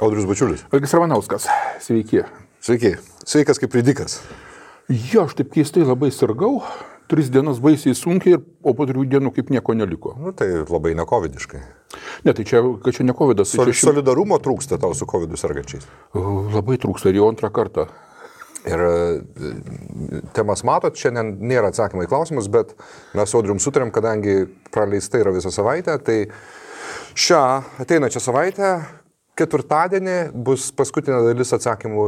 Audrius Bačiulis. Algis Ramanauskas, sveiki. Sveiki. Sveikas kaip ridikas. Jo, aš taip keistai labai sirgau, 3 dienas baisiai sunkiai, o po 3 dienų kaip nieko neliko. Nu, tai labai nekovidiškai. Ne, tai čia ne covidas. Solidarumo trūksta tau su covidu sergančiais. Labai trūksta ir jau antrą kartą. Ir temas matot, šiandien nėra atsakymai į klausimus, bet mes su Audrium sutarėm, kadangi praleista yra visą savaitę, tai šią ateinačią savaitę, ketvirtadienį, bus paskutinė dalis atsakymų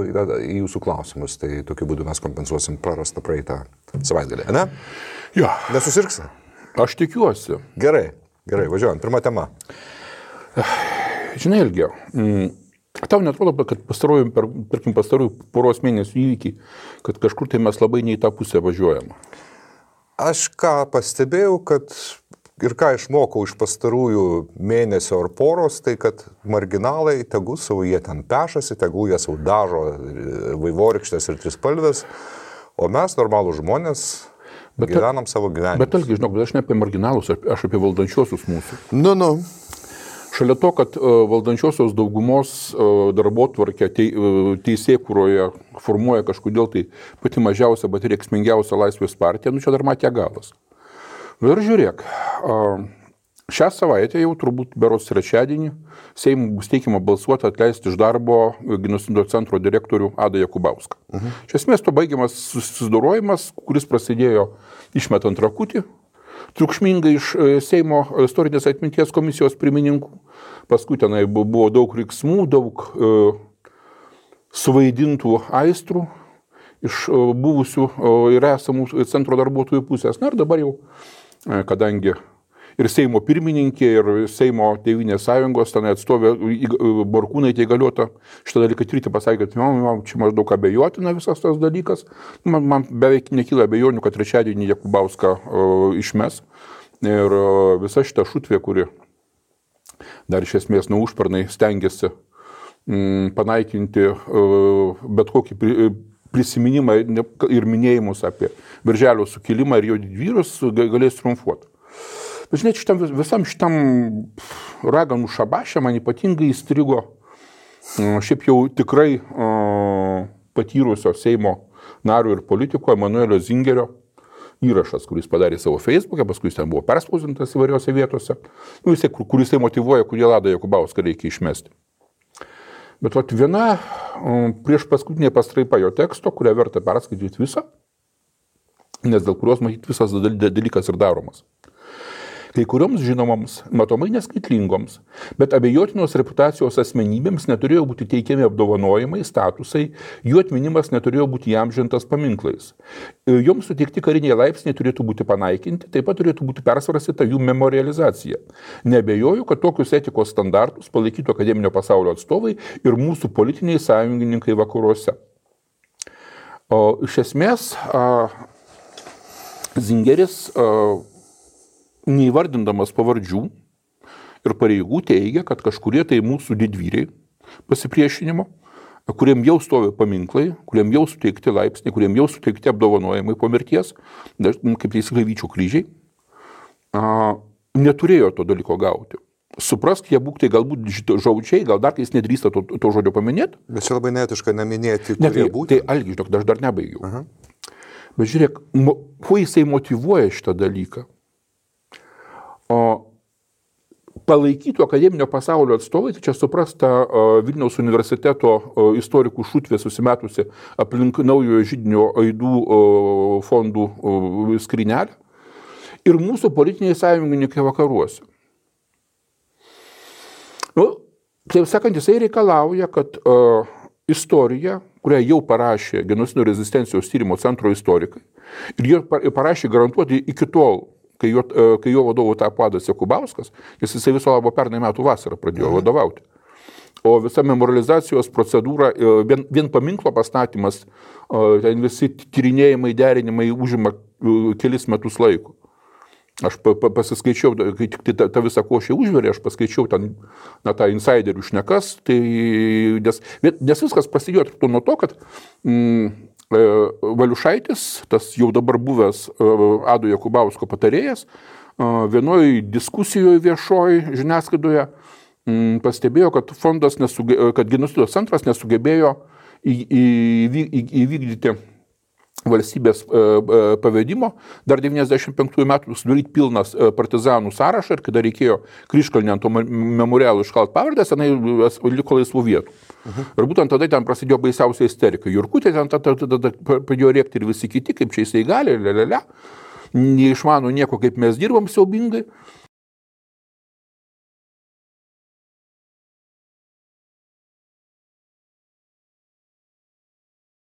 į jūsų klausimus. Tai tokiu būdu mes kompensuosim prarastą praeitą savaitgalį, ne? Jo. Nesusirgsi? Aš tikiuosi. Gerai, važiuojam. Pirma tema. Žinai, Ilgiau, tau netrodo, kad pastarųjų poros mėnesių įvykiai, kad kažkur tai mes labai ne į tą pusę važiuojam? Aš ką pastebėjau, kad ir ką išmokau iš pastarųjų mėnesio ar poros, tai kad marginalai, tegul savo jie ten pešasi, tegul jie savo dažo vaivorykštės ir trispalvės, o mes, normalų žmonės, gyvenam savo gyvenimą. Bet Algi, žinok, aš ne apie marginalus, aš apie valdančiosius mūsų. Nu. Šalia to, kad valdančiosios daugumos darbotvarkę teisėkūroje formuoja kažkodėl tai pati mažiausia, bet ir reikšmingiausia Laisvės partija, nu čia dar matė galas. Ir žiūrėk, šią savaitę jau turbūt berods trečiadienį Seimui bus teikiama balsuoti atleisti iš darbo genocido centro direktorių Adą Jakubauską. Iš esmės to baigiamas susidorojimas, kuris prasidėjo išmetant rakutį, triukšmingai iš Seimo istorinės atminties komisijos pirmininkų. Paskui tenai buvo daug riksmų, daug suvaidintų aistrų iš buvusių ir esamų centro darbuotojų pusės. Na ir dabar jau, kadangi ir Seimo pirmininkė, ir Seimo Tėvynės sąjungos ten atstovė Borkūnaitė įgaliota šitą dalyką tirti, pasakė, kad čia maždaug abejotina visas tas dalykas. Man beveik nekyla abejonių, kad trečiadienį Jakubauską išmes. Ir visa šita šutvė, kuri dar iš esmės nuo užpernai stengiasi panaikinti bet kokį prisiminimą ir minėjimus apie Birželio sukilimą ir jo didvyrius, galės triumfuoti. Bet žinai, visam šitam raganų šabašė man ypatingai įstrigo šiaip jau tikrai patyrusio Seimo nario ir politiko Emanuelio Zingerio įrašas, kuris padarė savo Facebook'e, paskui jis ten buvo perspausdintas įvairiose vietose, kuris motyvuoja, kodėl Adą Jakubauską reikia išmesti. Bet viena prieš paskutinė pastraipa jo teksto, kurią verta perskaityti visą, nes dėl kurios matyti visas dalykas ir daromas. Kai kurioms žinomoms, matomai neskaitlingoms, bet abejotinos reputacijos asmenybėms neturėjo būti teikiami apdovanojimai, statusai, jų atminimas neturėjo būti įamžintas paminklais. Joms suteikti kariniai laipsniai turėtų būti panaikinti, taip pat turėtų būti persvarstyta jų memorializacija. Neabejoju, kad tokius etikos standartus palaikytų akademinio pasaulio atstovai ir mūsų politiniai sąjungininkai vakaruose. O iš esmės, Zingeris neįvardindamas pavardžių ir pareigų teigia, kad kažkurie tai mūsų didvyriai pasipriešinimo, kuriem jau stovi paminklai, kuriem jau suteikti laipsniai, kuriem jau suteikti apdovanojimai po mirties, kaip teisingai Vyčio kryžiai, neturėjo to dalyko gauti. Suprask, jie būk tai galbūt žodžiai, gal dar kai jis nedrįsta to žodžio paminėti. Bet čia labai neetiška neminėti, kurie būtų. Tai Algi, aš dar nebaigiau. Bet žiūrėk, kuo jisai motyvuoja šitą dalyką? Palaikytų akademinio pasaulio atstovai, tai čia suprasta Vilniaus universiteto istorikų šutvė susimetusi aplink naujojo židinio aidų fondų skrynelę ir mūsų politiniai sąjungininkai vakaruose. Taip sakant, jisai reikalauja, kad istorija, kurią jau parašė genocido rezistencijos tyrimo centro istorikai, ir jie parašė garantuoti iki tol, kai jo vadovu tapo Adas Jakubauskas, jisai viso labo pernai metų vasarą pradėjo vadovauti. O visa memorializacijos procedūra, vien paminklo pastatymas, ten visi tyrinėjimai, derinimai užima kelis metus laiko. Aš pasiskaičiau, kai tik ta visa košė užverė, aš paskaičiau ten tą insiderių šnekas, tai, nes viskas prasidėjo nuo to, kad Valiušaitis, tas jau dabar buvęs Ado Jakubausko patarėjas, vienoj diskusijoje viešoj žiniasklaidoje pastebėjo, kad kad genocido centras nesugebėjo įvykdyti valstybės pavedimo, dar 95 metų sudaryti pilnas partizanų sąrašą ir kada reikėjo Kryžkalnį ant to memorialų iškalt pavardės, tenai liko laisvų vietų. Ir būtent tada ten prasidėjo baisiausia isterika. Jurkutė ten tada pradėjo rėkti ir visi kiti, kaip čia jisai gali, neišmano nieko, kaip mes dirbam siaubingai.